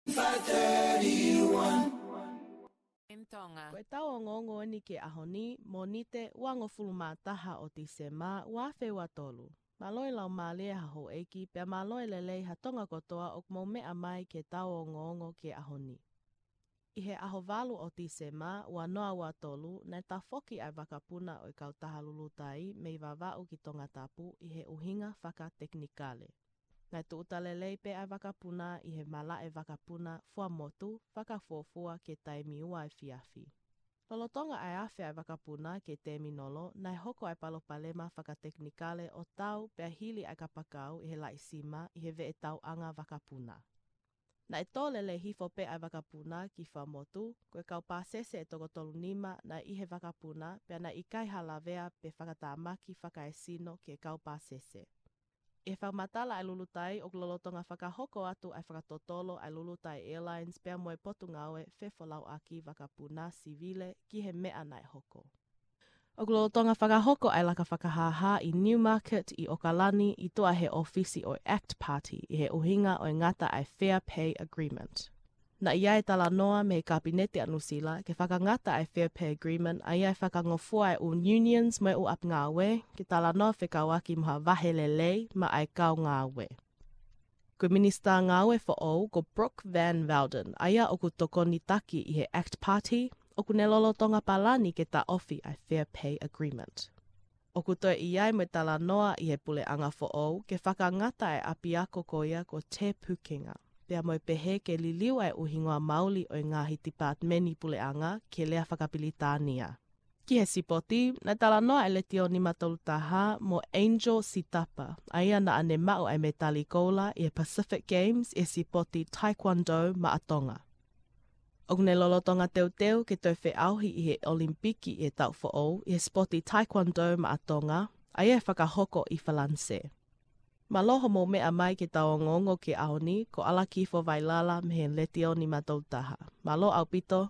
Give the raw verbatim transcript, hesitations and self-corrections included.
five thirty-one. M Tonga. Ko e tau ongoongo eni ki he ʻaho ni, Mōnite, uangofulu mā taha ʻo Tīsema, ua afe ua tolu. Mālō e laumālie ha houʻeiki, pea mālō e lelei ha Tonga kotoa ʻoku mou meʻa mai ki he tau ongoongo ki he ʻaho ni. ʻI he ʻaho valu ʻo Tīsema, ua noa ua tolu, naʻe tafoki ʻa e vakapuna ʻo e kautaha Lulutai mei Vavaʻu ki Tongatapu ʻi he ʻuhinga fakatekinikale. Naʻe tūʻuta lelei pē ʻa e vakapuna ʻi he malaʻe vakapuna Fuaʻamotu, fakafuofua ki he taimi ua efiafi. Lolotonga ʻa e afe ʻa e vakapuna ki he tēminolo, naʻe hoko ʻa e palopalema fakatekinikale ʻo tau pea hili ʻa e kapakau ʻi he laʻi sima ʻi he veʻe tauʻanga vakapuna. Naʻe tō lelei hifo pē ʻa e vakapuna ki Fuaʻamotu, ko e kau pāsese ʻe toko tolu nima naʻe ʻi he vakapuna, pea naʻe ʻikai ha lavea pe fakatamaki fakaesino ki he kau pāsese. ʻI he fakamatala ʻa e Lulutai, ʻoku lolotonga fakahoko atu ʻa e fakatotolo ʻa e Lulutai Airlines pea mo e Potungāue Fefolauʻaki Vakapuna Sivile ki he meʻa naʻe hoko. ʻOku lolotonga fakahoko ʻa e laka fakahāhā ʻi Newmarket ʻi ʻOkalani ʻi tuʻa he ʻōfisi ʻo e ACT Party ʻi he ʻuhinga ʻo e ngata ʻa e Fair Pay Agreement. Naʻe ʻi ai e talanoa mei he Kapineti ʻa Nuʻusila ke fakangata ʻa e Fair Pay Agreement, ʻa ia ʻe fakangofua e ʻū unions mo e ʻū ʻapi ngāue ke talanoa fekauʻaki mo ha vahe lelei maʻa e kau ngāue. Ko e Minisitā Ngāue foʻou ko Brooke Van Velden, ʻa ia ʻoku tokoni taki ʻi he ACT Party, ʻoku ne lolotonga palani ke taʻofi ʻa e Fair Pay Agreement. ʻOku toe ʻi ai mo e talanoa ʻi he puleʻanga foʻou ke fakangata e ʻapiako ko ia ko Te Pukenga, pea mo e pehē ke liliu ʻa e ʻū hingoa maoli ʻo e ngaahi tipātimeni puleʻanga ki he lea fakapilitānia. Ki he sipoti, naʻe talanoa ʻa e Letiō nima tolu taha mo Angel Sitapa, ʻa ia naʻa ne maʻu ʻa e mētali koula ʻi he Pacific Games ʻi he sipoti Taekwondo maʻa Tonga. ʻOku ne lolotonga teuteu ke toe feʻauhi ʻi he ʻOlimipiki ʻi he taʻu foʻou ʻi he sipoti Taekwondo maʻa Tonga, ʻa ia ʻe fakahoko ʻi Falānise. Mālō hoʻomou meʻa mai ki he tau ongoongo ki he ʻaho ni, ko ʻAlakifo Vailala mei he Letiō nima tolu taha. Mālō ʻaupito,